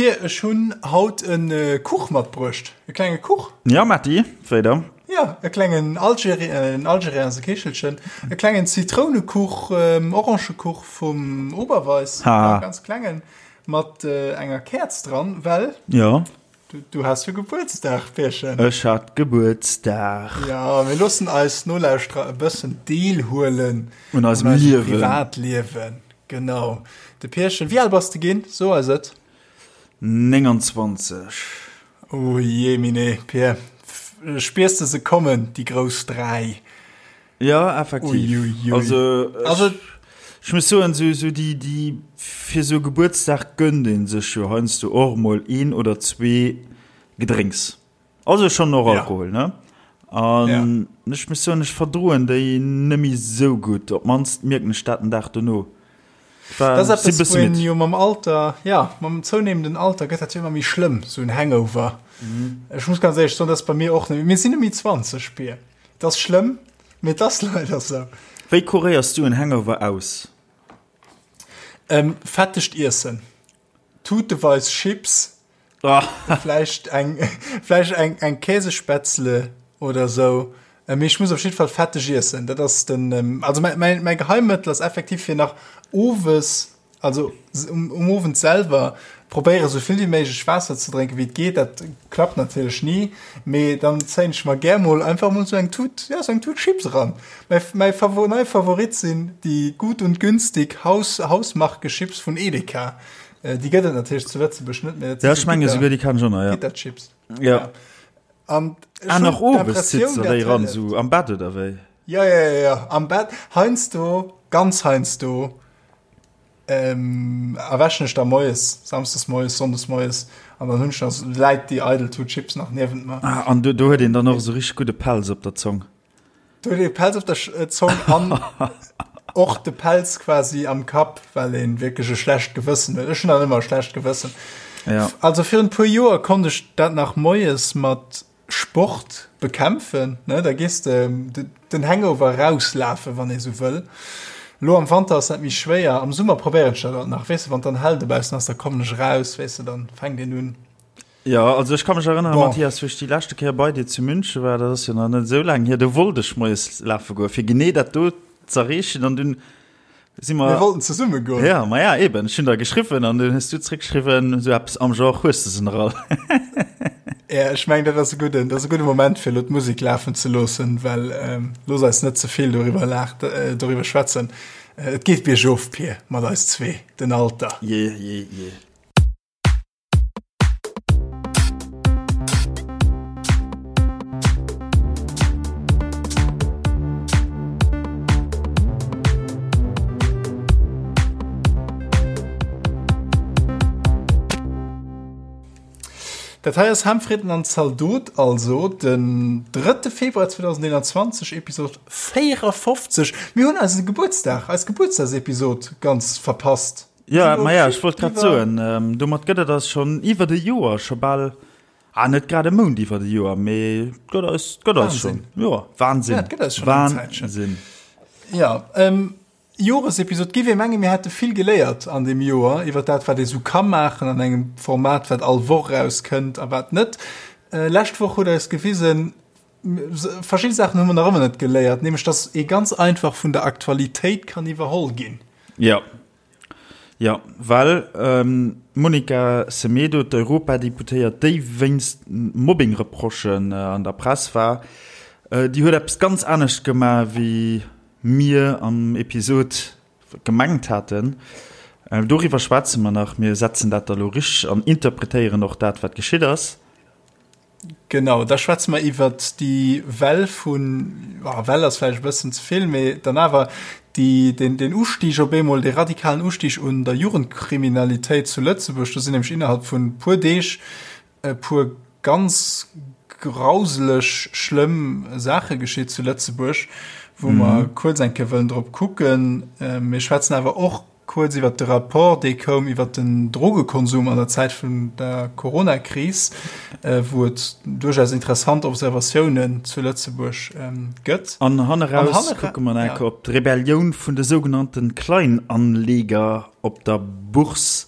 Pir, ech hunn haut e Kuch matbruecht. E klenge Kuch. Ja, Matti, wéi da? Ja, e klengen Algeri en Algerien ass e Kichelchen. E klengen Zitrounekuch, Orangekuch vum Oberweis. Ha. E ganz klengen, mat enger Käerz dran, well. Ja. Du, du has jo Gebuertsdag, Pierchen. Ech hat Gebuertsdag. Ja, mir loossen eis Nolauschterer e bëssen deelhuelen un eisem Liewen. Privatliewen. Genau. De Pierchen, wéi al bass de ginn? So eis et. 29. Oh jee mine, Pier. Spiers de se kommen, déi grouss 3? Ja, effektiv. Ui, ui, ui. Also, also ech muss soen, sou, sou déi, déi, fir sou Gebuertsdag gönnt een sech jo heiansdo och mol een oder zwee Gedrénks. Also schon och Alkohol, ja. ne? An ja. ech muss soen, ech verdroen déi net méi sou gutt. Op d'mannst mierken ech dat den Dag dono. Dat ass eppes, wou een jo mam Alter, ja, mam zounehmenden Alter gëtt dat jo ëmmer méi schlëmm, sou en Hangover. Mhm. Ech muss ganz éierlech soen, dat ass bei mir och net. Mir sinn net méi 20, Pir. Et ass schlëmm, mee et ass leider sou. Wéi kuréiers du en Hangover aus? Ähm, fettegt Iessen. Tuteweis Chips. Vläicht eng, vläicht eng, eng Käsespätzle oder sou. Äh, mee ech muss op jidde Fall fetteg iessen. Dat ass den, ähm, also mäi, mäi, mäi Geheimmëttel ass effektiv fir nach owes, also um, um Owend selwer probéiere sou vill wéi méiglech Waasser ze drénken wéi et geet. Dat klappt natierlech ni, mee dann zéien ech mer gär mol einfach mol sou eng Tut, ja, sou eng Tut Chips eran. Mäi, mäi Favo, nei Favorit sinn déi Gut und Günstig Haus, Hausmarke Chips vun Edeka. Äh, déi gëtt et natierlech zu Lëtzebuerg net méi. Ja, ech menge souguer déi kann ech och nach, ja. Gitterchips. Ja. ja. An ah, nach owes sitzt der déi ran, so am Bett oder wéi? Ja, ja, ja, ja, am Bett. Heiansdo, ganz heiansdo, ähm, erwächen ech da moies, samsdes moies, sonndes moies, an dann hunn ech nach, läit déi eidel Tut Chips nach niewent mer. Ah, an do, do huet een dann och esou richteg gudde Pelz op der Zong. Du huet ee Pelz op der Zong an och de Pelz quasi am Kapp, well een wierklech e schlecht Gewëssen huet. Ech hunn dann ëmmer e schlecht Gewëssen. Ja. Also virun e puer Joer konnt ech dat nach moies mat Sport bekämpfen, ne? Da gees de den Hangover rauslafen, wann ee sou wëll. Lo am Wanter ass dat méi schwéier. Am Summer probéieren ech dat alt nach, weess de, wann dann hell dobaussen ass, da kommen ech eraus, weess de, dann fänkt een un. Jo, also ech ka mech erënneren, Bon. Mathias, wou ech déi leschte Kéier bei dir zu München war, dat ass jo nach net esou laang hier, do wollt ech moies lafe goen, fir genee dat do z'erreechen an dunn si mer. Mir wollten zesumme goen. Ja, ma ja, eben, ech hunn der geschriwwen an dunn hues du zréckgeschriwwen, esou eppes am Genre, hues de se nach all? Ja, ech mengen, dat ass e gudden, dat ass e gudde Moment, fir elo d'Musek lafen ze loossen, well ähm, looss eis net ze vill doriwwer laach, äh, doriwwer schwätzen. Äh, et geet biergof, Pir, mat eis zwee, den Alter. Jee, jee, jee. Dat hei ass Ham, Fritten an Zaldot, also den 3. Februar 2021, Episod 54. Mir hunn eise Gebuertsdag, eis Gebuertsdagsepisod ganz verpasst. Ja, ma ja, ech wollt grad soen, ähm, domat gëtt et eis schonn iwwert e Joer, scho bal, ah, net grad e Mount iwwert e Joer, mee et gëtt eis, et gëtt eis schonn. Jo, Wahnsinn. Ja, et gëtt eis schonn eng Zäitchen. Wahnsinn. Ja, ähm, Joresepisod giff ee mengen, mir hätte vill geléiert an deem Joer iwwer dat, wat ee sou ka maachen an engem Format, wat all Woch erauskënnt a wat net. Äh, lescht Woch huet eis gewisen, verschidde Saachen hu mer nach ëmmer net geléiert, nämlech dass ee ganz einfach vun der Aktualitéit kann iwwerholl ginn. Ja. Ja, well d'Monica Semedo, d'Europadeputéiert, déi wéinst Mobbing-Reprochen an der Press war, déi huet eppes ganz anescht gemaach, wéi mir am Episod gemengt haten. Doriwwer schwätze mer nach. Mir setzen dat da lo richteg an interpretéieren och dat, wat geschitt ass. Genau, da schwätze mer iwwert déi Well vun, oh, Well ass vläicht e bëssen ze vill, mee dann awer déi, den, den Ustieg op eemol, dee radikalen Ustieg un der Jugendkriminalitéit zu Lëtzebuerg. Do sinn nämlech innerhalb vun e puer Deeg e puer ganz grauseleg schlëmm Saache geschitt zu Lëtzebuerg, wou mer kuerz eng Kéier wëllen drop kucken. Mir schwätzen awer och Kuerz iwwert de Rapport, dee koum iwwert den Drogekonsum an der Zäit vun der Coronakris, wou et duerchaus interessant Observatiounen zu Lëtzebuerg gëtt. An hanneraus kucke mer nach eng Kéier op d'Rebellioun vun de sougenannte Kleinanleger op der Bourse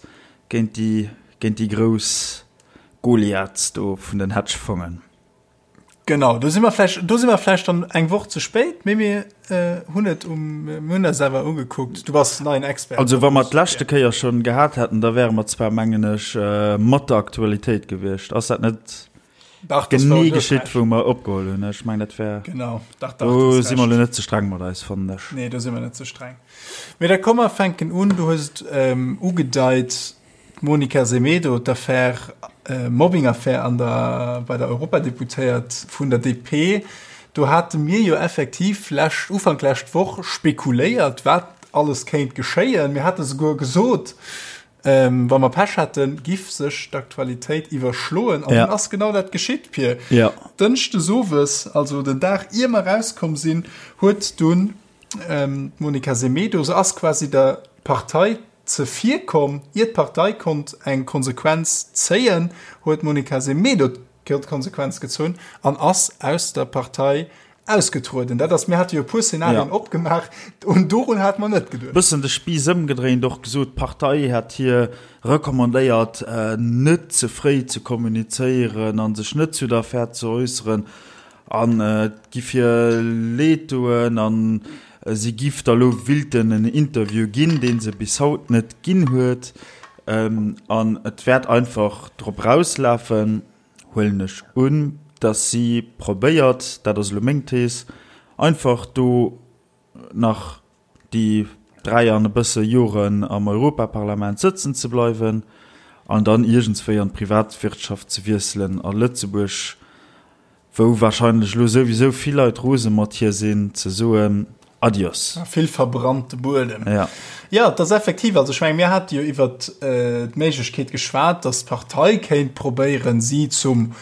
géint déi. Géint déi grouss Goliaths do vun den Hedgefongen. Genau, do si mer vläicht, do si mer vläicht dann eng Woch ze spéit, mee mir hunn et um, mir hunn eis awer ugekuckt. Du bass neien Expert. Also wa mer d'leschte Kéier schonn gehat hätten, da wäre mer zwar, mengen ech, mat der Aktualitéit gewiescht. Ass dat net Dach, das genee geschitt, wou mer opgeholl hunn? Ech mengen, dat wär. Genau, dach, dach. Do si mer elo net ze streng mat eis, fannen ech. Nee, do si mer net ze streng. Mee da komm mer fänken un. Du hues et ugedeit, D'Monica Semedo, d'Affär, Mobbing-Affär an der, bei der Europadeputéiert vun der DP, do hate mir jo effektiv lescht, Ufank lescht Woch spekuléiert, wat alles kéint geschéien. Mir hate souguer gesot, wa mer Pech hätten, giff sech d'Aktualitéit iwwerschloen. An dunn ass genau dat geschitt, Pir. Dënschdes owes, also den Dag ier mer erauskomm sinn, huet dunn D'Monica Semedo, se ass quasi der Partei zevirkomm. Ier d'Partei konnt eng Konsequenz zéien, huet d'Monica Semedo d'Konsequenz gezunn an ass aus der Partei ausgetrueden. Dat ass, mir hate jo e puer Szenarien opgemaach, un dorun hate mer net geduecht. Bëssen de Spiiss ëmgedréint, och gesot, d'Partei hätt hir recommandéiert, net ze fréi ze kommunizéieren a sech net zu der Affär ze äusseren. An et giff hir leed doen an si giff da lo willten en Interview ginn, deen se bis haut net ginn huet. An et wäert einfach drop rauslafen, huelen ech un, dass si probéiert, dat ass elo meng Thees, einfach do nach déi 3 an e bësse Joren am Europaparlament sëtzen ze bleiwen an dann iergendswéi an d'Privatwirtschaft ze wiesselen a Lëtzebuerg, wou wahrscheinlech elo souwisou vill Leit rose mat hir sinn, ze soen Adios. Vill verbrannte Buedem. Ja. Jo, et ass effektiv, also ech menge mir hate jo iwwert d'Méiglechkeet geschwat, datt d'Partei kéint probéieren, si zum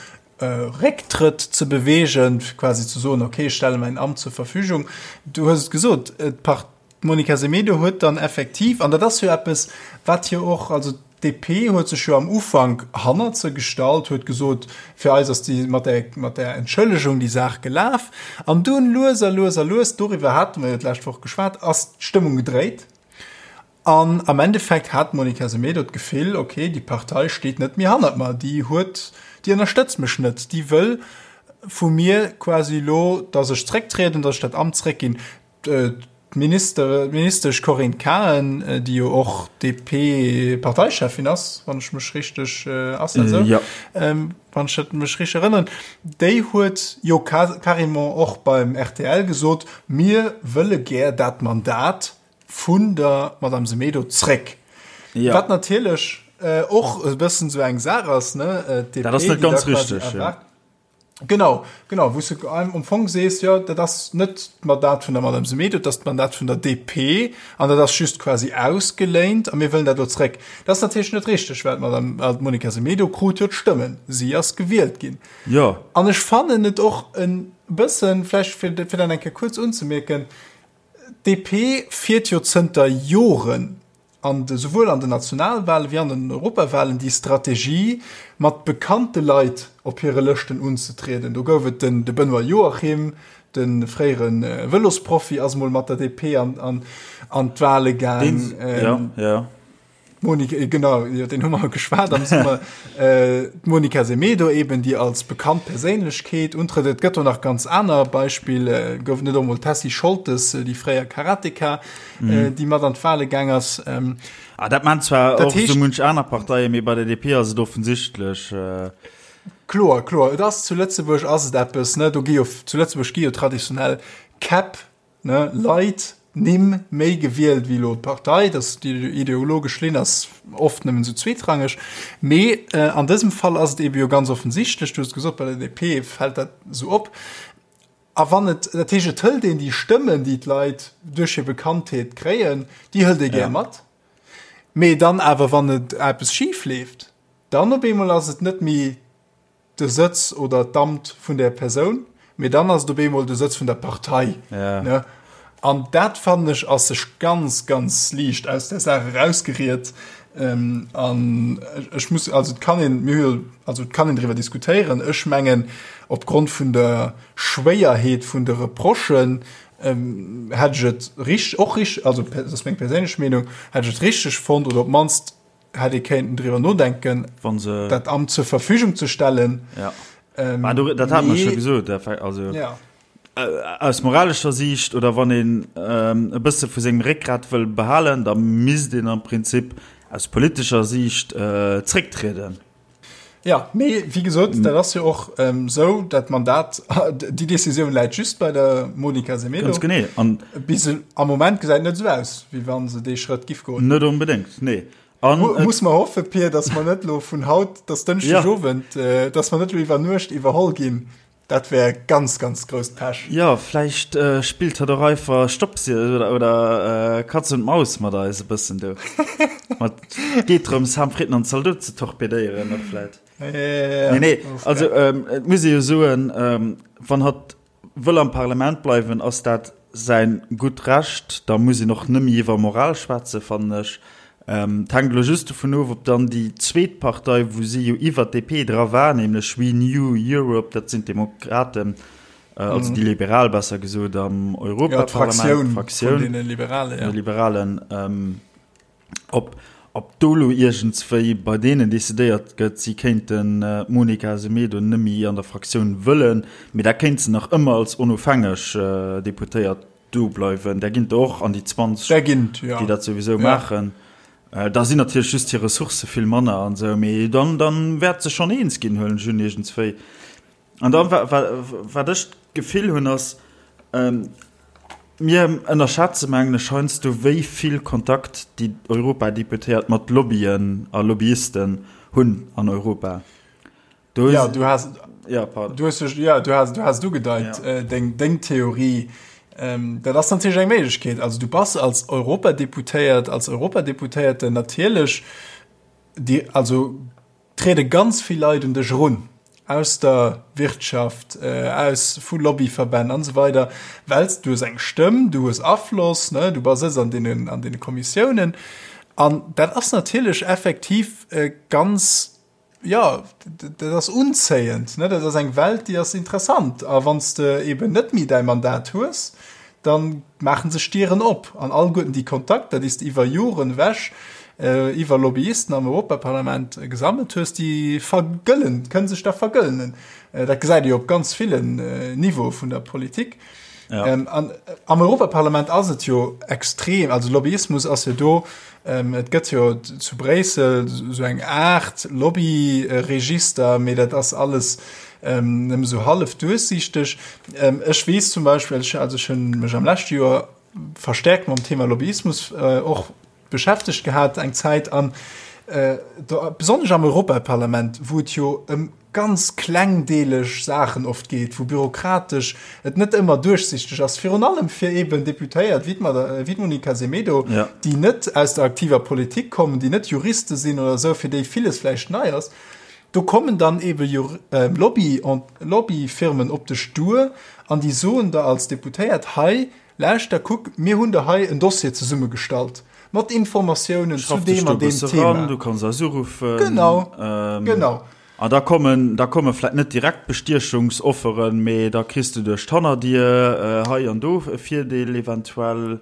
Récktrëtt ze beweegen, fir quasi ze soen, okay, ech stelle mäin Amt zur Verfügung. Du hues et gesot, d'Monica Semedo huet dann effektiv, an dat ass jo eppes, wat jo och, also d'DP huet sech jo am Ufank hannert se gestallt, huet gesot, fir eis ass déi mat där, mat där Entschëllegung déi Saach gelaf. An dunn lues a lues a lues, doriwwer hate mer jo d'lescht Woch geschwat, ass d'Stëmmung gedréit. An am Endeffekt hat d'Monica Semedo d'Gefill, ok, déi Partei steet net méi hannert mer, déi huet, déi ënnerstëtzt mech net, déi wëll vu mir quasi elo, datt ech zrécktrieden, datt ech dat Amt zréckginn. D'Minister, d'Ministesch Corinne Cahen, déi jo och DP-Parteicheffin ass, wann ech mech richteg, ass dat esou? Jo. Wann ech dat mech richteg erënneren, déi huet jo carrément och beim rtl gesot, mir wëlle gär dat Mandat vun der Madame Semedo zréck. Ja. Wat natierlech äh, och e bëssen sou eng Saach ass, ne? Äh, DP, dat ass net ganz richteg. Ja. Genau, genau, wou du am Fong sees, ja, dat ass net d'Mandat vun der Madame Semedo, dat ass d'Mandat vun der DP an dat ass just quasi ausgeléint a mir wëllen dat lo zréck. Dat ass natierlech net richteg, well d'Madame well d'Monica Semedo krut jo d'Stëmmen, si ass gewielt ginn. Ja. An ech fannen et och en bëssen, vläicht fir, fir dat eng Kéier kuerz unzemierken, D'DP fiert jo zënter Joren an de souwuel an den Nationalwale wéi an den Europawalen déi Strategie, mat bekannte Leit op hire Lëschten unzetrieden. Do gouf et den de Benoît Joachim, de fréiere Vëlosprofi ass mol mat der DP an an d'Wale gaang. D'Monica, genau, iwwer deen hu mer geschwat am Summer. D'Monica Semedo eben, déi als bekannt Perséinlechkeet untrëtt. Et gëtt do nach ganz aner Beispiller. Gouf et net och mol d'Tessy Scholtes, déi fréier Karateka, déi mat an d'Wale gaang ass? Ah, dat maachen zwar och esou munch aner Parteien, mee bei der DP ass et offensichtlech. Kloer, kloer. Et ass zu Lëtzebuerg ass et eppes, ne, do gi jo, zu Lëtzebuerg gi jo traditionell Käpp Ne, Leit, Nimm méi gewielt wéi elo d'Partei, dass déi ideologesch Linn ass oft nëmmen esou zweetrangeg. Mee an dësem Fall ass et eebe jo ganz offensichtlech, du hues et gesot, bei der DP fält dat esou op. A wann et, dat heescht, et hëlt een déi Stëmmen, déi d'Leit duerch hir Bekanntheet kréien, déi hëlt ee gär mat. Mee dann awer, wann et eppes schif leeft, dann op eemol ass et net méi de Sëtz oder d'Amt vun där Persoun, mee dann ass et op eemol de Sëtz vun der Partei. Ja. Ne? An dat fannen ech ass sech ganz, ganz liicht aus der Saach erausgeriet. Ähm, an ech muss, also et kann een, mir hu jo, also et kann een driwwer diskutéieren. Ech mengen, opgrond vun der Schwéierheet vun de Reprochen, ähm, hätt ech et richt-, och richt-, also dat ass meng perséinlech Meenung, hätt ech et richteg fonnt oder op d'mannst. hätt ee kéinten driwwer nodenken, Wann se. dat Amt zur Verfügung ze stellen. Ja. Ähm, ah, du, dat hat man scho gesot. Also, ja. Äh, aus moralescher Siicht oder wann een ähm, e bësse vu sengem Réckgrat wëll behalen, da misst een am Prinzip aus politescher Siicht äh, zrécktrieden. Ja, mee wéi gesot, dat ass jo och ähm, sou, dat Mandat, déi Decisioun läit just bei der Monica Semedo. Ganz genee. An Bis am Moment gesäit net sou aus, wéi wann se dee Schrëtt giff goen. Net onbedéngt, nee. An Mu muss mer hoffe, Pir, datt mer net lo vun haut, datt Dënschdeg Owend, ja. äh, datt mer net lo iwwer Nuecht iwwerholl ginn. Dat wär ganz, ganz grousst Pech. Jo, vläicht spillt hatt och einfach Stopps oder, oder Katz und Maus mat eis e bëssen do. Mat geet drëms, Ham, Fritten an Zaldot ze torpedéieren och vläit. Ja, Nee, nee, also et muss ee jo soen, wann hatt wëll am Parlament bleiwen, ass dat säin gutt Recht. Da muss een och nëmme iwwer Moral schwätzen, fannen ech. Et hänkt elo just dovun of, ob dann déi zweet Partei, wou si jo iwwer d'DP dra war, nämlech Renew Europe, dat sinn d'Demokraten, also déi Liberal besser gesot am Europaparlament, d'Fraktioun vun deene Liberalen, ja. Liberalen, ob, ob do elo iergendswéi bei deenen decidéiert gëtt, si kéinten d'Monica Semedo nëmme an der Fraktioun wëllen, mee da kéint se nach ëmmer als onofhängeg Deputéiert Do bleiwen, där ginn der och an déi 20, Där ginn et, ja. déi dat souwisou maachen. Da sinn natierlech just hir Ressourcë vill manner an esou, mee dann, dann wäert se schonn eens ginn, huelen ech un, iergendswéi. An dann, wa, wa, wat ech d'Gefill hunn, ass, mir ënnerschätze mengen ech heiansdo, wéi vill Kontakt déi Europadeputéiert mat Lobbyen a Lobbyisten hunn an Europa. Du ja, du hast, ja, du hast, ja, du hast, du hast ugedeit, ja. äh, deng, deng Theorie. Ähm, dat ass natierlech eng Méiglechkeet. Also du bass als Europadeputéiert, als Europadeputéierte natierlech, die, also trede ganz vill Leit un dech erun aus der Wirtschaft, äh, aus vu Lobbyverbänn an so weider, wells du hues eng Stëmm, du hues Afloss, ne, du bass an deenen an deene Kommissiounen. An dat ass natierlech effektiv äh, ganz Jo, dat ass unzéiend, ne? Dat ass eng Welt, déi ass interessant. A wann s de eben net méi däi Mandat hues, da maache sech Dieren op. An alleguerten déi Kontakter, déi s de iwwer Joren ewech iwwer Lobbyisten am Europaparlament gesammelt hues, déi vergëllen, kënne sech da vergëllenen. Dat gesäit ee jo op ganz villen Niveaue vun der Politik. Ja. Ähm, an, am Europaparlament ass et jo extrem, also Lobbyismus ass jo do, ähm, et gëtt jo zu Bréissel so eng Art Lobbyregister, mee dat ass alles ähm, nëmme so hallef duerchsichteg. Ähm, ech weess zum Beispill, ech, also ech hunn mech am leschte Joer verstärkt mam Thema Lobbyismus äh, och beschäftegt gehat eng Zäit an äh, do, besonnesch am Europaparlament, wou et jo ëm ganz klengdeeleg Saachen oft geet, wou bürokratesch et net ëmmer duerchsichteg ass, virun allem fir eben Deputéiert wéi d'Monica Semedo, ja. déi net aus der aktiver Politik kommen, déi net Juriste sinn oder esou, fir déi villes vläicht nei ass. Do kommen dann ebe äh, Lobby, Lobbyfirmen op dech duer an déi soen der als Deputéiert, hei, Lauschter, kuck, mir hunn der hei en Dossier zesummegestallt mat Informatiounen zu deem an deem Thema. Du kanns eis uruffen. Genau, genau. An da kommen, da komme vläit net direkt Bestiechungsofferen, mee da kriss de duerch d'Hannerdier hei an do e Virdeel eventuell.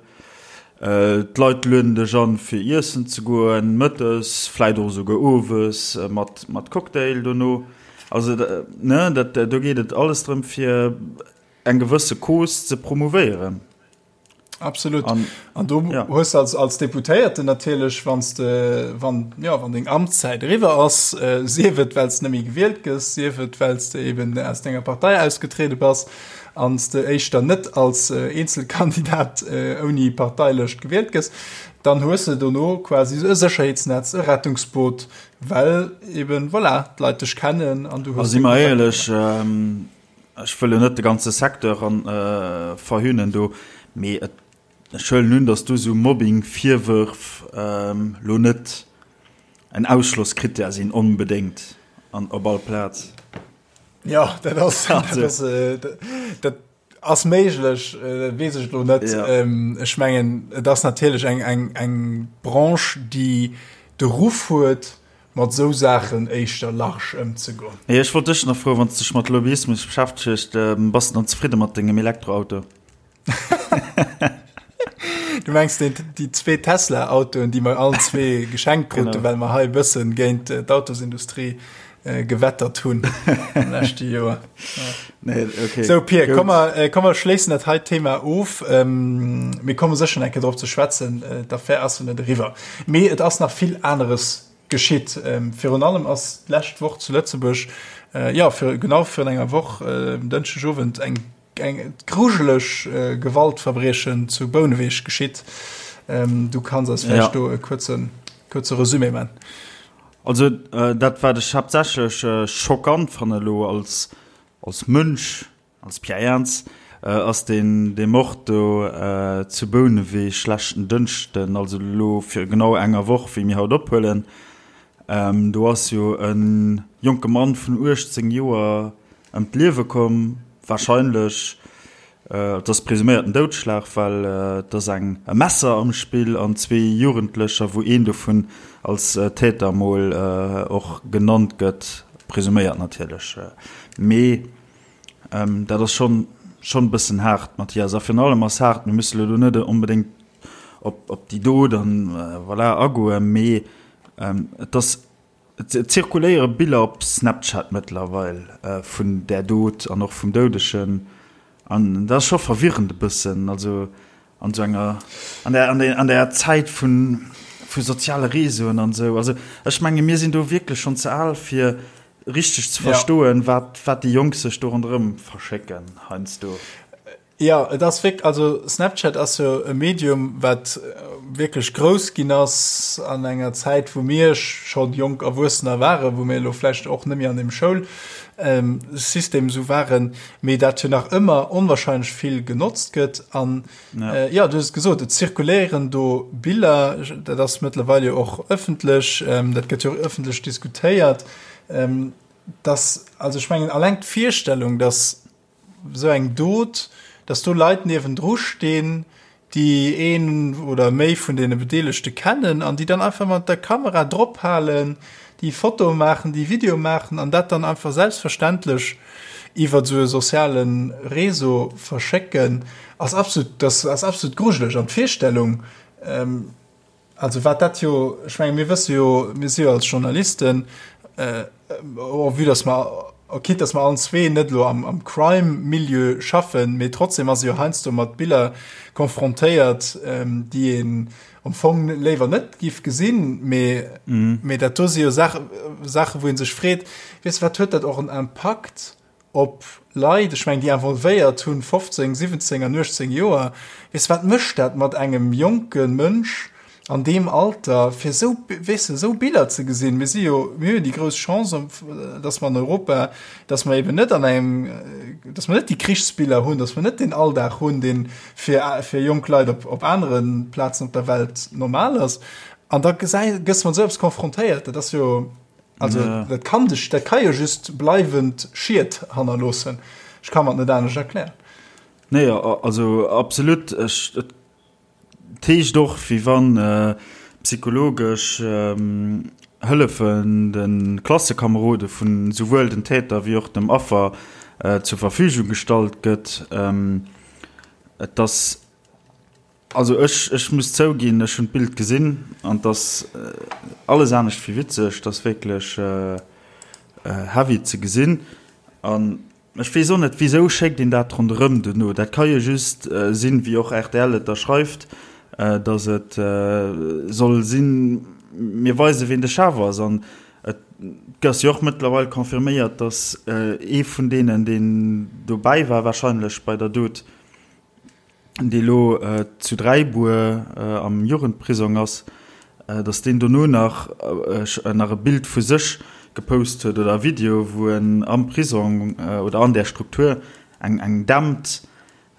D'Leit lueden dech an, fir iessen ze goen, mëttes, vläit och esouguer owes mat, mat Cocktail dono. Also, ne, dat, do geet et alles drëm, fir eng gewësse Cause ze promouvéieren. Absolut. An, an du ja. hues als, als Deputéierten natierlech, wanns de, wann, ja, wann deng Amtszäit eriwwer ass, äh, sief et, well s net méi gewielt gëss, sief et, well s de eben aus denger Partei ausgetrede bass, an s de éischter net als äh, Eenzelkandidat äh, ouni Parteilëscht gewielt gëss, dann hues de dono quasi e Sécherheetsnetz, e Rettungsboot, well eben, voilà, d'Leit dech kennen an du hues. A si mer éierlech, ähm, Ech wëll jo net de ganze Secteur verhöhnen do, mee ech huelen un, datt do esou Mobbing-Virwërf lo net en Ausschlosskrittär sinn onbedéngt an op all Plaz. Jo, dat ass, dat ass méiglech, weess ech elo net. Ech mengen, et ass natierlech eng Branche, déi de Ruff huet, mat esou Saachen éischter large ëmzegoen. Mee ech wollt dech nach froen, wann s dech mat Lobbyismus beschäftegt, bass de dann zefridde mat dengem Elektroauto? Du mengs den, déi zwee Tesla-Autoen, déi mer allen zwee geschenkt kruten, well mer hei e bëssen géint äh, d'Autosindustrie äh, gewettert hunn am leschte Joer. Nee, okay. So Pier, komm mer, äh, komm mer schléissen dat hei Thema of. Ähm, mir komme sécher eng Kéier drop ze schwätzen, äh, d'Affär ass jo net eriwwer. Mee et ass nach vill aneres geschitt. Ähm, virun allem ass d'lescht Woch zu Lëtzebuerg, äh, ja, fir, genau virun enger Woch, äh, Dënschdegowend, eng eng grujeleg äh, Gewaltverbriechen zu Bouneweg geschitt. Ähm, du kanns eis vläicht ja. do e kuerzen, kuerze Resumé man. Also äh, dat wat ech haaptsächlech äh, schockant fanne lo als, als Mënsch, als Pierre Ernz, äh, ass den de Mord do äh, zu Bouneweg leschten Dënschden, also lo fir genau enger Woch, wéi mir haut ophuelen. Ähm, do ass jo e jonke Mann vun 18 Joer ëm d'Liewe komm, warscheinlech, et ass presuméierten Doudschlag, well et ass eng e Messer am Spill an zwee Jugendlecher, wou een dovun als Täter mol och genannt gëtt, presuméiert natierlech, mee dat ass schonn schonn e bëssen haart, Mathias. A virun allem ass haart, mir musse lo do net onbedéngt op op déi Dot an voilà agoen, mee et ass Et zirkuléiere Biller op Snapchat mëttlerweil vun där Dot an och vum Doudegen an dat ass scho verwirrend e bëssen. Also an esou enger, an der, an der, an der Zäit vu vu soziale Reseauen an esou. Also ech menge mir sinn do wierklech schonn ze al fir richteg ze verstoen, wat, wat déi Jonk sech do ronderëm verschécken heiansdo. Jo, et ass wierk-, also Snapchat ass jo e Medium, wat wierklech grouss ginn ass an enger Zäit, wou mir scho jonk Erwuessener waren, wou mir elo vläicht och net méi an deem Schoulsystem esou waren, mee dat jo nach ëmmer onwahrscheinlech vill genotzt gëtt. An jo, du hues et gesot, et zirkuléieren do Biller, dat ass mëttlerweil jo och ëffentlech, dat gëtt jo och ëffentlech diskutéiert, dass, also ech mengen, alleng d'Virstellung, dass esou eng Dot, dass do Leit niewendru stinn, déi een oder méi vun deene Bedeelegte kennen an déi dann einfach mat der Kamera drop halen, déi Fotoe maachen, déi Videoe maachen an dat dann einfach selbstverständlech iwwer esou e soziale Réseau verschécken, ass absolut, das ass absolut grujeleg. An d'Virstellung, Also wat dat jo, ech menge mir wësse jo, mir si jo als Journalisten, oh vue dass mer, quitte dass mer allen zwee net elo am, am Crime-Milieu schaffen, mee trotzdem ass ee jo heiansdo mat Biller konfrontéiert, déi een am Fong léiwer net giff gesinn, mee, mee dat do si jo Saache, Saache wou ee sech freet, weess de, wat huet dat och en Impakt op Leit, ech mengen déi involvéiert hunn 15, 17 an 18 Joer, weess de wat mécht dat mat engem jonke Mënsch an deem Alter fir esou, weess de, esou Biller ze gesinn. Mir si jo, mir hunn jo déi grouss Chance, datt mer an Europa, datt mer eben net an engem, datt mer net déi Krichsbiller hunn, datt mer net deen Alldag hunn, dee fir fir jonk Leit op op anere Plazen op der Welt normal ass. An da gesäi, gëss mat esou eppes confrontéiert, dat ass jo, Also ja. dat kann dech, dat kann jo just bleiwend Schied hannerloossen. Ech kann mer et net anescht erklären. Nee, also absolut. Ech, et heescht och, wéi wann äh, psychologesch ähm, Hëllefen de Klassekamerode vun souwuel den Täter wéi och dem Affer äh, zur Verfügung gestallt gëtt. Ähm, et ass Also ech ech muss zouginn, ech hunn d'Bild gesinn an 't ass alles anescht wéi witzeg, 't ass wierklech heavy ze gesinn an ech weess och net wisou schéckt een dat ronderëm duerno. Dat ka jo just sinn, wéi och rtl et da schreift, datt et soll sinn, mir weise ween de Chef ass an et ass jo och mëttlerweil confirméiert, datt ee vun deenen deen dobäi war warscheinlech bei der Dot, dee lo zu Dräibuer am Jugendprisong ass, datt deen dono nach nach e Bild vu sech gepost huet oder e Video, wou en am Prisong oder an där Struktur eng eng dämmt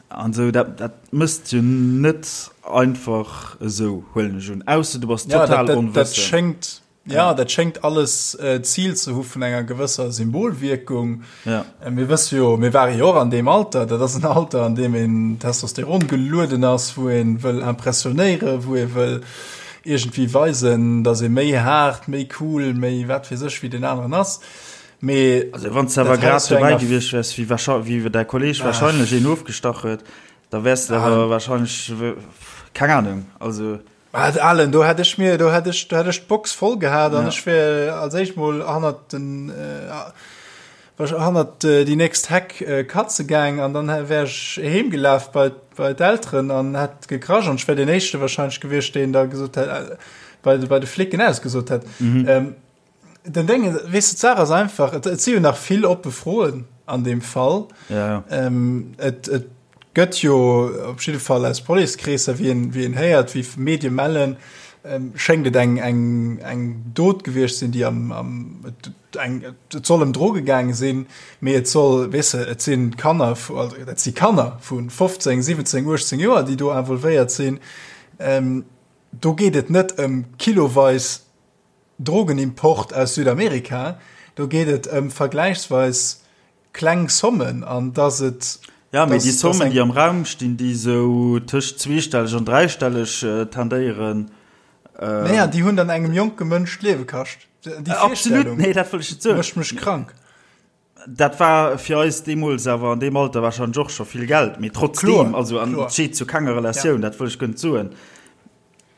an esou. Dat dat mësst jo net einfach esou, huelen ech un, ausser du bass total onwëssend. Ja, dat schéngt alles d'Zil ze hu vun enger gewësser Symbolwierkung. Ja. Mir wësse jo, mir ware jo och an deem Alter, dat ass en Alter, an deem een Testosteron gelueden ass, wou ee wëll impressionéieren, wou ee wëll iergendwéi weisen, datt ee méi haart, méi cool, méi wat weess ech wéi deen aneren ass. Mee Also wann s de awer grad dobäi gewiescht wäers, wéi wéi däi Kolleeg warscheinlech een ofgestach huet, da wäers de awer warscheinlech. Keng Ahnung, also. Mä Alen, do hätt ech mir, do hätt ech, do hätt ech d'Box voll gehat an ech wär als éischt mol hannert den, hannert déi nächst Heck katze gaang an dann wär ech heem gelaf bei, bei d'Elteren an hätt gekrasch an ech wär deen éischte wahrscheinlech gewiescht, deen da gesot hätt, bei, bei de Flicken ausgesot hätt. Den Déngen, weess de, d'Saach ass einfach, et, et si jo nach vill oppe Froen an deem Fall. Ja, ja. Ähm, et, et gëtt jo op jidde Fall aus Policekreesser, wéi een, wéi een héiert, wéi Medie mellen, ähm, schéngt et eng, eng, eng Dot gewiescht sinn, déi am, am et, eng, et soll ëm Droge gaange sinn, mee et soll, weess de, et si Kanner, also dat si Kanner vu 15, 17, 18 Joer, déi do involvéiert sinn. Ähm, do geet et net ëm kiloweis Drogenimport aus Südamerika, do geet et ëm vergläichsweis kleng Sommen an dass et. Jo, mee déi Sommen, déi am Raum stinn, déi esou tëscht zweestelleg an dräistelleg tendéieren. Naja, déi hunn dann engem jonke Mënsch d'Liewe kascht. Déi Virstellung mécht mech krank. Dat war fir eis deemools awer an deem Alter warscheinlech och scho vill Geld, mee trotzdeem, also an et steet zu kenger Relatioun, dat wëll ech guer net soen.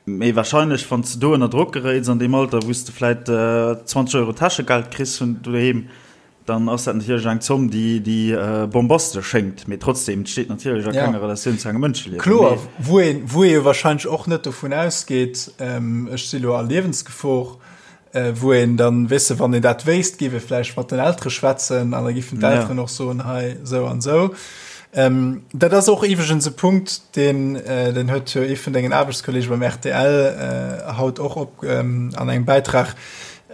Mee wahrscheinlech, wann s de do ënner Drock geréits an deem Alter, wou s de vläit 20 Euro Täschegeld kriss vun doheem, dann ass dat natierlech eng Zomm, déi, déi bombastesch schéngt. Mee trotzdeem, et steet natierlech a kenger Relatioun zu engem Mënscheliewen. Kloer, wou een, wou ee jo wahrscheinlech och net dovun ausgeet, ech si lo a Liewensgefor, wou een dann, weess de, wann een dat wéisst, géif ee vläicht mat den Eltere schwätzen an da giffen d'Elteren och soen, hei esou an esou. Ähm, dat ass och iwweregens e Punkt, deen, äh, den huet jo ee vun dengen Aarbechtskollege beim RTL äh, haut och op ähm, an engem Bäitrag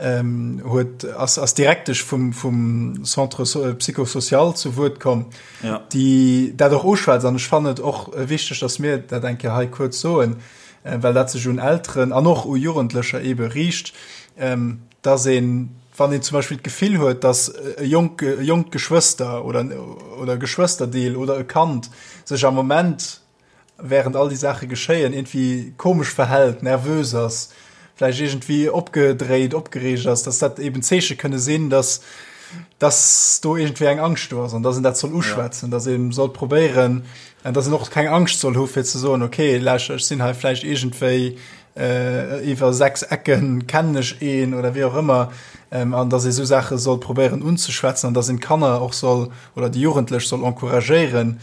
ähm, huet, ass, ass Direktesch vum, vum Centre so, Psychosocial zu Wuert komm, ja. déi dat och uschwätzt. An ech fannen et och wichteg, dass mir dat eng Kéier hei kuerz soen. well dat sech un Elteren an och u Jugendlecher eebe riicht, dass een, wann een zum Beispill d'Gefill huet, dass e jonk, e jonkt Geschwëster oder, oder e Geschwësterdeel oder e Kand sech am Moment, während all déi Saache geschéien, iergendwéi komesch verhält, nervös ass, vläicht iergendwéi opgedréit, opgereegt ass, dass dat eeben Zeeche kënne sinn, dass, dass do iergendwéi eng Angscht do ass an dass een dat soll uschwätzen, dass ee soll probéieren, An dass en och keng Angscht soll hu fir ze soen, okay, lauschter, ech sinn hei vläicht iergendwéi äh, iwwer sechs Ecken kennen ech een oder wéi och ëmmer, ähm, an dass ee sou Saache soll probéieren unzeschwätzen an dass een d'Kanner och soll oder déi Jugendlech soll encouragéieren,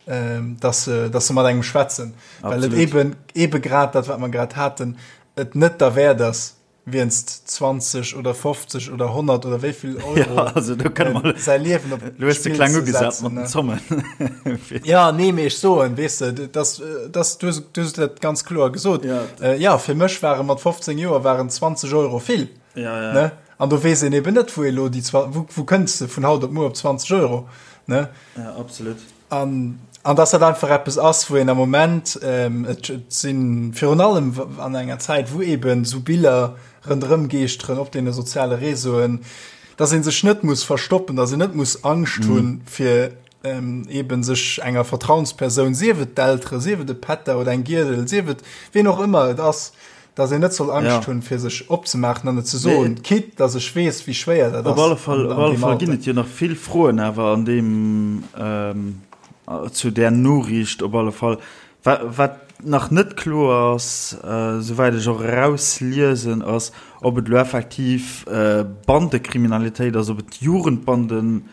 ähm, dass se, dass se mat engem schwätzen. Well et eben, eben grad dat, wat mer grad haten, et net derwäert ass, Wienst 20 oder 50 oder 100 oder wéi vill Euro ja, also, du äh, mal, säi Liewen op du hast kleng ugesat mat den Zommen. ja nee mee ech soen weess de das, das, du, du hast dat ganz kloer gesot ja. Äh, ja fir mech ware mat 15 Joer waren 20 Euro vill ja, ja. Ne? An do weess een eben net wou elo déi wou, wou kënns de vun haut op muer op 20 Euro ne? Ja, absolut. An, an dass dat einfach eppes ass, wou een am Moment, ähm, et, et si virun allem an enger Zäit, wou eben esou Biller ronderëm geeschteren op deene soziale Réseauen, dass ee sech net muss verstoppen, dass een net muss Angscht hunn, fir ähm, eben sech enger Vertrauenspersoun, sief et d'Eltere, sief et e Pätter oder eng Giedel, sief et ween och ëmmer et ass, dass een net soll Angscht Ja. hunn, fir sech opzemaachen an et ze soen, Mee quitte dass ech weess, wéi schwéier dat Op ass alle Fall, an, op an alle deem Fall ginn Alter. et jo nach vill Froen awer an deem, ähm, zu där Noriicht op alle Fall. Wa, wat nach net kloer ass, äh, souwäit ech och erausliesen, ass, ob et elo effektiv äh, Bandekriminalitéit ass, ob et Jugendbanden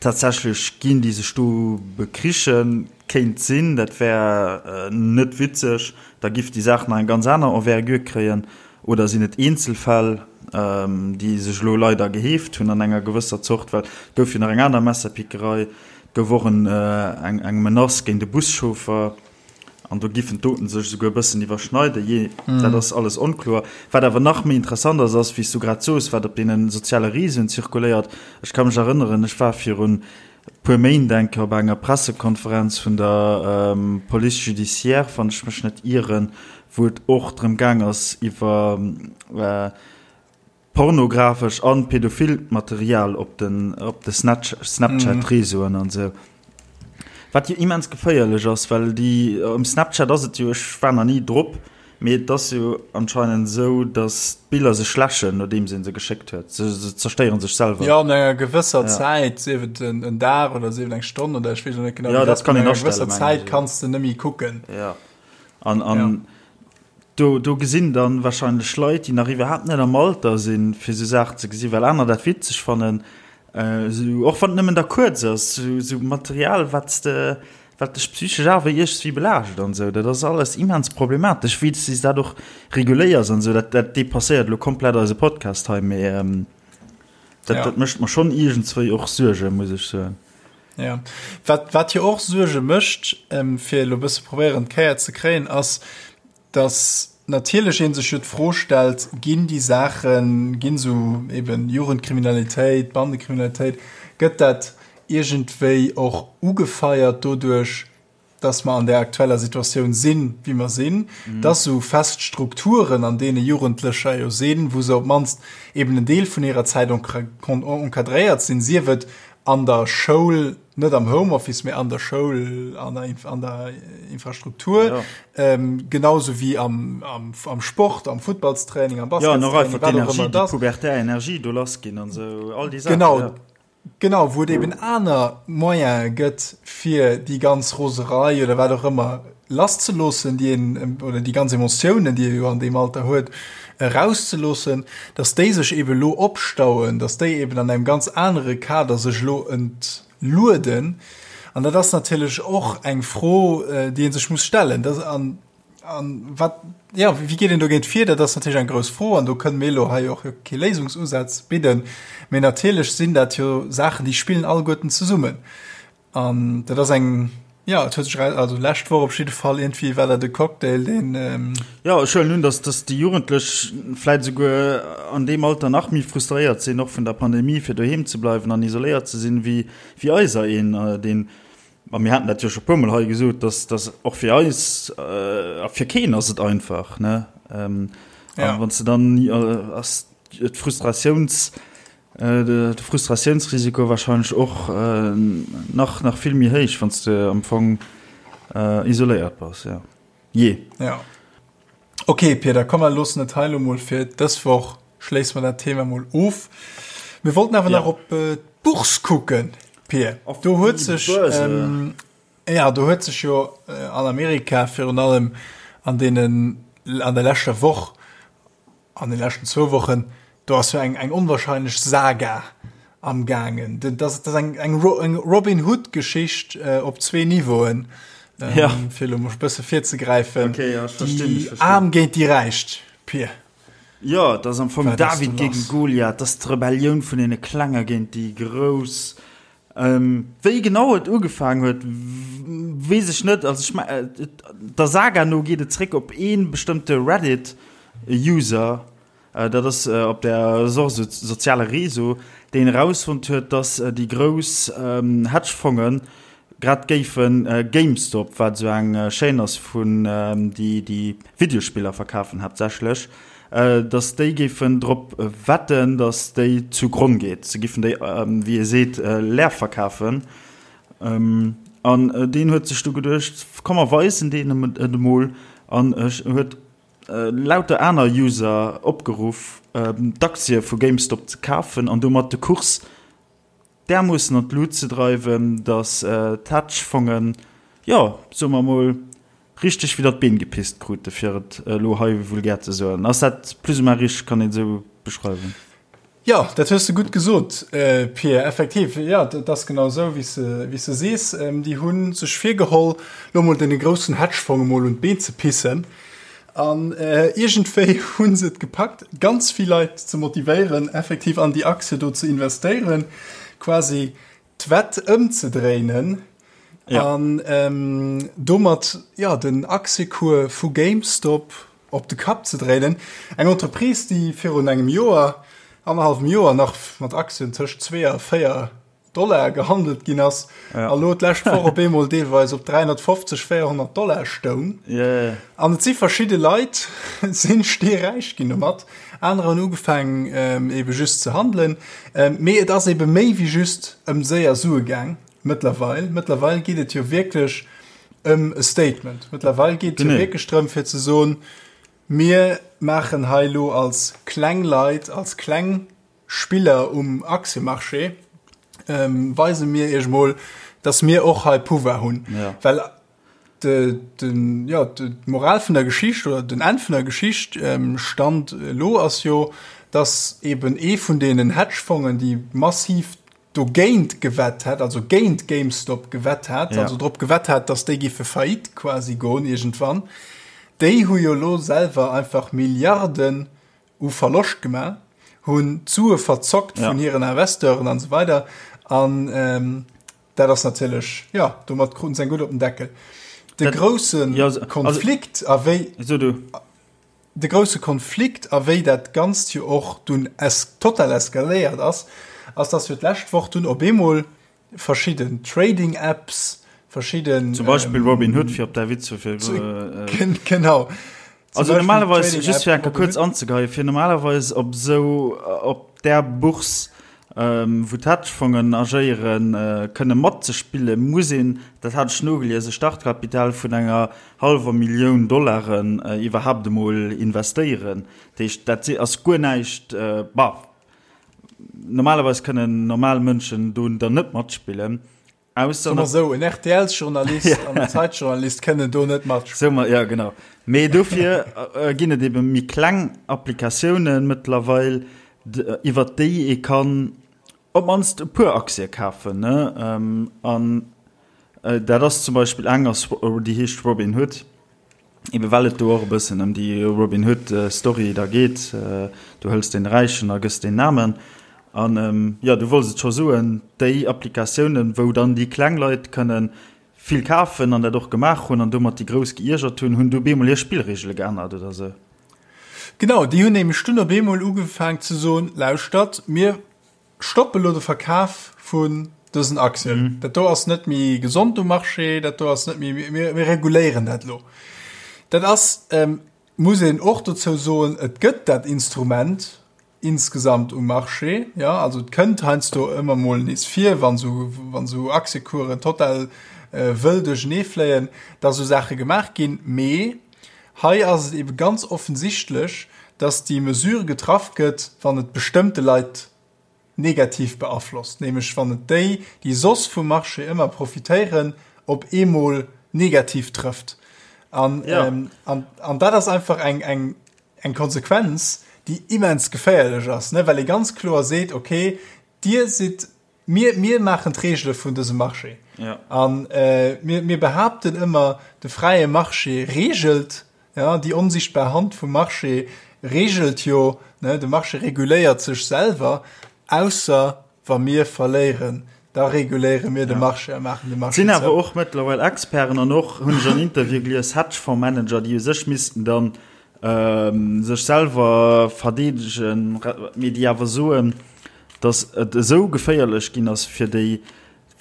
Tatsächlech ginn, déi sech do bekrichen. Kéint sinn, dat wär net witzeg, da giff déi Saach nach eng ganz aner Envergure kréien. Oder sinn et Eenzelfäll, déi sech elo leider geheeft hunn an enger gewësser Zort, well et gouf jo nach eng aner Messerpickerei, et gouf och eng Menace géint e Buschauffer. An do giffen d'Doten sech esouguer e bëssen iwwerschneiden, jee, dat ass alles onkloer. Wat awer nach méi interessant ass, ass, wéi s du grad soos, wat op deene soziale Reseauen zirkuléiert. Ech ka mech erënneren, ech war virun e puer Méint eng Kéier op enger Pressekonferenz vun der Police judiciaire, wann ech mech net ieren, wou et och drëm gaang ass iwwer Pornografesch an pädophilt Material op den op de Snapchat Reseauen an sou. Wat jo immens geféierlech ass, well déi um Snapchat ass et jo, ech war nach ni drop, mee et ass jo anscheinend esou, dass d'Biller sech läschen nodeems een se geschéckt huet. Se se zerstéieren sech selwer. Jo, no enger gewësser Zäit, sief et en Dag oder sief et eng Stonn oder ech weess elo net genau wéi dat ass, kann no een enger gewësser astellen, mengen Zäit ech. kanns de net méi kucken. Jo. An, an ja. do, do gesinn dann wahrscheinlech Leit, déi nach iwwerhaapt net am Alter sinn, fir sou Saachen ze gesinn, well aner dat witzeg fannen, äh, sou, och wann et nëmmen da kuerz ass, sou, sou Material, wat s de, wat dech psychesch awer iergendswéi belaascht an sou. Dat ass alles immens problematesch, wéi s de dat och reguléiers an sou. Dat, dat depasséiert elo komplett eise Podcast hei, mee ähm, dat, ja. dat mécht mer schonn iergendswéi och Suergen, muss ech soen. Ja. Wat, wat jo och Suerge mécht, ähm, fir elo e bësse probéieren d'Kéier ze kréien, ass, dass natierlech ee sech jo d'Fro stellt, ginn déi Saachen, ginn esou eben Jugendkriminalitéit, Bandekriminalitéit, gëtt dat iergendwéi och ugefeiert doduerch, dass mer an där aktueller Situatioun sinn, wéi mer sinn, dass esou fest Strukturen, an deene Jugendlecher jo sinn, wou se op d'mannst eben en Deel vun hirer Zäit encadréiert sinn, sief et an der Schoul, net am Homeoffice, mee an der Schoul, an der, an der Infrastruktur, ja. ähm, genauso wéi am, am, am Sport, am Futtballstraining, am Baskettraining, ja, wat och ëmmer dat. Pubertär Energie do lass ginn an esou all déi Saachen. Genau. Ja. Genau, wou et eben aner Moyene gëtt, fir déi ganz Roserei oder wat och ëmmer lasszeloossen, déi een, oder déi ganz Emotiounen, déi ee jo an deem Alter huet, erauszeloossen, dass déi sech eben elo opstauen, dass déi eben an engem ganz anere Kader sech elo entlueden. An dat ass natierlech och eng Fro, déi ee sech muss stellen. Dat, an, an wat, jo, wéi geet een dogéint vir? Dat ass natierlech eng grouss Fro an do kënne mir elo hei och kee Léisungsusaz bidden. Mee natierlech sinn dat jo Saachen, déi spillen alleguerten zesummen. An dat ass eng, jo, et huet sech eraus, also lescht Woch op jidde Fall iergendwéi war dat e Cocktail, deen. Jo, ech huelen un, dass, dass déi Jugendlech vläit esouguer an deem Alter nach méi frustréiert sinn, och vun der Pandemie, fir doheem ze bleiwen an isoléiert ze sinn, wéi, wéi eiser een, deen, a mir haten dat jo scho puermol hei gesot, dass, dass och fir eis, a fir keen ass et einfach, ne? A wann s de dann, ass d'Frustratiouns, De Frustratiounsrisiko warscheinlech och nach nach vill méi héich, wann s de am Fong isoléiert bass, jo. Jee. Ja. Ok, Pir, da komm mer loossen et hei elo mol fir dës Woch, schléisse mer dat Thema mol of. Mir wollten awer nach op d'Bourse kucken, Pir. Do huet sech, jo, do huet sech jo an Amerika virun allem an deenen, an der leschter Woch An de leschten zwou Wochen, do ass jo eng, eng onwahrscheinlech Saga am gaangen. Dat ass, dat ass eng, eng, eng Robin Hood-Geschicht äh, op zwee Niveauen. Ähm, ja. Fir elo mol bësse virzegräifen. Okay, ja, ech verstinn, ech verstinn. Aarm géint déi Räicht, Pir. Ja, dat ass am Fong David gegen Goliath, dat ass d'Rebellioun vun deene Klenge géint déi Grouss. Wéi genau et ugefaangen huet, weess ech net. Also ech me der Saga no geet et zréck op ee bestëmmte Reddit-User, dat ass op der ass och esou soziale Réseau, deen erausfonnt huet, dass déi grouss Hedgefonge grad géife GameStop, wat esou eng Chaîne ass vun déi déi Videospiller verkafen haaptsächlech, dass déi géifen drop wetten, dass déi zu Gronn geet. Se giffen déi, wéi ee seet, leer verkafen. An deen huet sech du geduecht, komm mer weisen deenen et emol an huet lauter aner User opgeruff, d'Aktie vu GameStop ze kafen an domat de Kurs därmoossen an d'Lut ze dreiwen, datt d'Hedgefongen, jo, soe mer emol, richteg widder d'Been gepisst krute, fir et elo hei vulgär ze soen. Ass dat plus ou moins richteg? Kann een et esou beschreiwen? Jo, dat hues de gutt gesot, Pir. Effektiv, jo, dat ass genau esou, wéi s de sees. Déi hu sech virgeholl, elo emol deene groussen Hedgefonge mol un d'Been ze pissen. An iergendwéi hu se et gepackt, ganz vill Leit ze motivéieren, effektiv an déi Aktie do ze investéieren, quasi d'Wett ëmzedréinen an domat, jo, den Aktiecours vu GameStop op de Kapp ze dréinen. Eng Entreprise, déi virun engem Joer, annerhallwem Joer nach mat Aktien tëscht 2 a 4 Dollar gehandelt ginn ass ja. a lo d'lescht Woch op eemol deelweis op 350, 400 Dollar stoung. Yeah. An et si verschidde Leit sinn steeräich ginn domat. Anerer hunn ugefaangen ähm, ebe just ze handelen. Ähm, mee et ass ebe méi wéi just ëm séier Sue gaang mëttlerweil. Mëttlerweil geet et jo wierklech ëm e Statement. Mëttlerweil geet et jo wierklech drëm fir ze soen, mir maachen hei lo als kleng Leit, als kleng Spiller um Aktiemarché, weise mir iech mol, dass mir och hei Pouvoir hunn. Ja. Well. De, den, ja, d'Moral vun der Geschicht oder den Enn vun der Geschicht ähm, Stand elo ass jo, dass eben ee vun deenen Hedgefongen, déi massiv dogéint gewett hat, also géint GameStop gewett hat, ja. also drop gewett hat, dass déi giffe faillite quasi goen iergendwann, déi hu jo lo selwer einfach Milliarden u Verloscht gemaach, hunn d'Sue verzockt ja. vun hiren Investeuren an so weider an ähm, dat ass natierlech ja domat kruten se eng gutt op den Deckel. De grousse ja, Konflikt a wéi so du. De grousse Konflikt a wéi dat Ganzt jo och dunn es total eskaléiert ass, ass dass jo d'lescht Woch dunn op eemol verschidden Trading Apps, verschidden. Zum Beispill Robinhood, fir op däi Witz vu vir. Genau. Also normalerweis, just fir eng Kéier kuerz anzegeien, fir normalerweis op esou, op där Bourse, wou d'Hedgefongen agéieren, kënne matzespillen, muss een, dat hat ech nogelies, e Startkapital vun enger hallwer Millioun Dollaren iwwerhaapt emol investéieren. Dat heescht, dat ass guer näischt, bah, normalerweis kënnen normal Mënschen do dann net matspillen, ausser. Soe mer esou, en RTL-Journalist an en Zeitjournalist kënnen do net matspillen. Soe mer, jo, genau. Mee dofir ginn et ebe méi kleng Applikatiounen mëttlerweil, iwwert déi ee kann op d'mannst e puer Aktie kafen, ne? An dat ass zum Beispill eng ass, déi heescht Robinhood, ebe well et do och e bëssen ëm déi Robin Hood Story da geet, du hëls dee Räichen a gëss deen Aarmen. An jo, du wollts et scho soen, déi Applikatiounen, wou dann déi kleng Leit kënne vill kafen an dat och gemaach hunn an domat déi Grouss geiergert hunn, hunn du op eemol hir Spillreegele geännert oder sou. Genau, déi hunn nämlech dunn op eemol ugefaang ze soen, Lauschtert, mir stoppe lo de Verkaf vun dësen Aktien. Dat do ass net méi gesond um Marché, dat do ass net méi, mir, mir reguléieren dat lo. Dat ass, muss een och dozou soen, et gëtt dat Instrument insgesamt um Marché, jo, also et kënnt heiansdo ëmmer mol nees vir, wann esou, wann esou Aktiekuren total wëll duerchenee fléien, dass esou Saache gemaach ginn. Mee hei ass et ebe ganz offensichtlech, dass déi Mesure getraff gëtt, wann et bestëmmte Leit negativ beaflosst, nämlech wann et déi, déi soss vum Marché ëmmer profitéieren, op eemol negativ trëfft. An, an, an dat ass einfach eng, eng, eng Konsequenz, déi immens geféierlech ass, ne, well ee ganz kloer seet, okay, Dir sidd, mir, mir maachen d'Regele vun dësem Marché. Ja. An äh, mir, mir behaapten ëmmer, de fräie Marché regelt, ja, déi onsichtbar Hand vum Marché regelt jo, ne, de Marché reguléiert sech selwer, ausser wa mir verléieren, da reguléiere mir de Marché a maachen de Marché zou. Sinn awer och mëttlerweil Experten an och, hunn ech an Interviewe gelies, Hedgefondsmanager, déi u sech missten dann sech selwer verdeedegen, mee déi awer soen, datt et esou geféierlech ginn ass fir déi,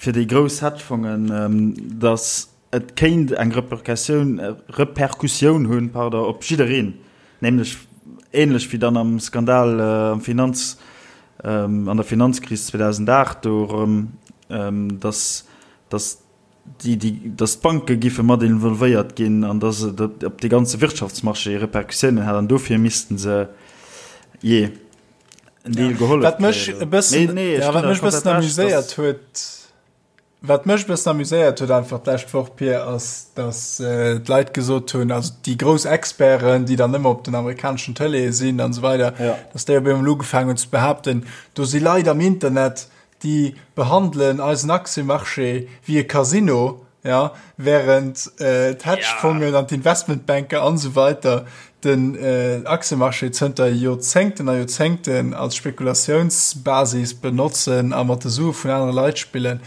fir déi grouss Hedgefongen, datt et kéint eng Repercussioun, Repercussioun hunn, pardon, op jiddereen, nämlech ähnlech wéi dann am Skandal am Finanz, an der Finanzkris 2008 do erëm, datt, datt déi, déi, datt d'Banke giffe mat involvéiert ginn an datt et op de ganze Wirtschaftsmarché Repercussiounen hätt an dofir misste se jee en Deel gehollef Wat mech e bëssen, nee, ja, wat mech e bëssen amuséiert huet, wat mech e bëssen amuséiert huet einfach d'lescht Woch, Pir, ass, datt äh, d'Leit gesot hunn, also déi grouss Experten, déi dann ëmmer op den amerikaneschen Tëleeë sinn an esou weider, ja. datt déi op eemol ugefaangen hunn ze behaapten, do si Leit am Internet, déi behandelen eisen Aktiëmarché wéi e Casino, ja, während d'Hedgefongen an d'Investmentbanker an esou weiter den Aktiëmarché zënter Joerzéngten a Joerzéngten als Spekulatiounsbasis benotzen a mat de Sue vun anere Leit spillen.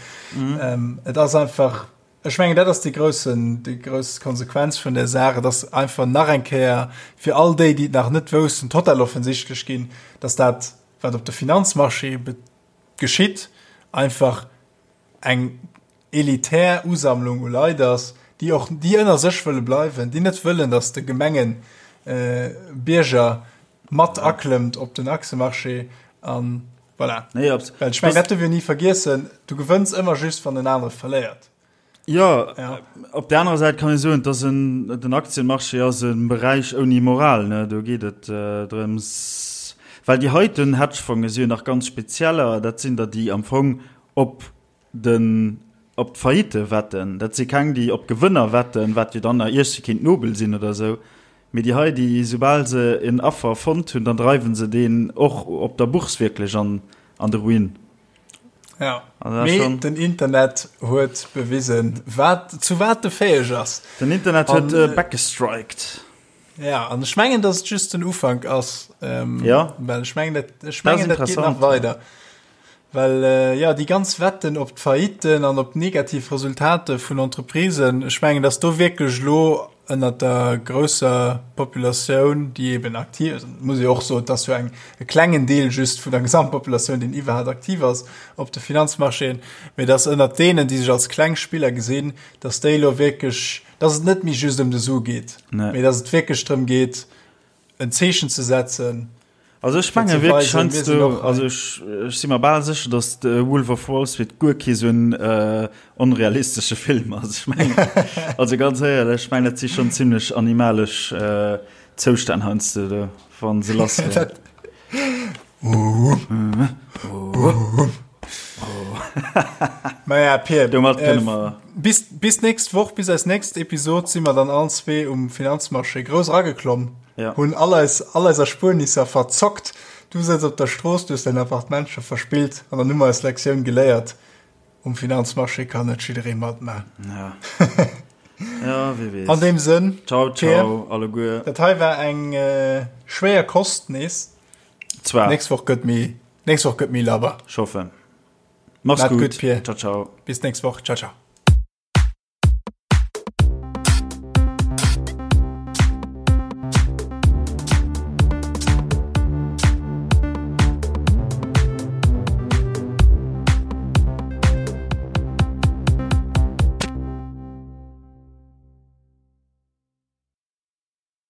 Et ass einfach, ech mengen, dat ass déi groussen, déi grouss Konsequenz vun där Saach. Et ass einfach nach eng Kéier fir all déi, déi et nach net woussten, total offensichtlech ginn, dass dat, wat op de Finanzmarché geschitt, einfach eng elitär Usammlung u Leit ass, déi och déi ënner sech wëlle bleiwen, déi net wëllen, datt de gemengen Bierger mat aklëmmt op den Aktiëmarché an voilà. Nee, Well ech mengen, dat dierf een ni vergiessen, du gewënns ëmmer just, wann en anere verléiert. Jo, op där anerer Säit kann ee soen, dass en, den Aktienmarché ass e Beräich ouni Moral, ne? Do geet et drëms, well déi heiten Hedgefonge si jo nach ganz spezieller, dat sinn der, déi am Fong op de. op d'Faillite wetten. Dat si keng, déi op Gewënner wetten, wat jo dann nach iergsi kéint nobel sinn oder esou. Mee déi hei, déi soubal se en Affer fonnt hunn, dann dreiwe se deen och op der Bourse wierklech an an de Ruin. Ja, mee den Internet huet bewisen, wat, zu wat e fäeg ass. Den Internet huet äh, backgestriked. Ja, an ech mengen, dass et just den Ufank ass. Ähm, ja. Well ech mengen, dat, ech mengen, dat geet nach weider. Well äh, ja, déi ganz Wetten op d'Failliten an op negativ Resultate vun Entreprisen, ech mengen, dass do wierklech lo ënnert der grousser Populatioun, déi eben aktiv ass, muss ee och soen, et ass jo eng e klengen Deel just vun der Gesamtpopulatioun, deen iwwerhaapt aktiv ass op de Finanzmarchéen, mee dass ënnert deenen, déi sech als kleng Spiller gesinn, dass déi elo wierklech, dass et net méi just ëm de Su geet, mee dass et wierklech drëm geet, en Zeechen ze setzen. Also ech menge wierklech heiansdo, also ech, ech si mer bal sécher, datt de Wolf of Wall Street guer kee sou en äh, onrealistesche Film ass. Ech mengen, also ganz éierlech, ech mengen dat si schonn zimlech animalesch äh, Zoustänn heiansdo do, wa se lass ginn. Maja, Pir, Domat kënne mer. Bis, bis nächst Woch, bis eis nächst Episod si mer dann allen zwee um Finanzmarché grouss erageklomm. Ja. Hunn all eis, all eis Erspuernisser verzockt. Du sëtz op der Strooss, du hues däin Appartement scho verspillt an dann hu mer eis Lektioun geléiert, um Finanzmarché kann net jidderee matman. Ja. Ja, wie weess. An deem Sënn, Ciao, ciao, alleguer. Dat hei war eng äh, schwéier Kost nees. Zwar. Nächst Woch gëtt méi, nächst Woch gëtt méi labber. Ech hoffen. Mach's gutt, Pier. Ciao, ciao. Bis nächst Woch. Ciao, ciao.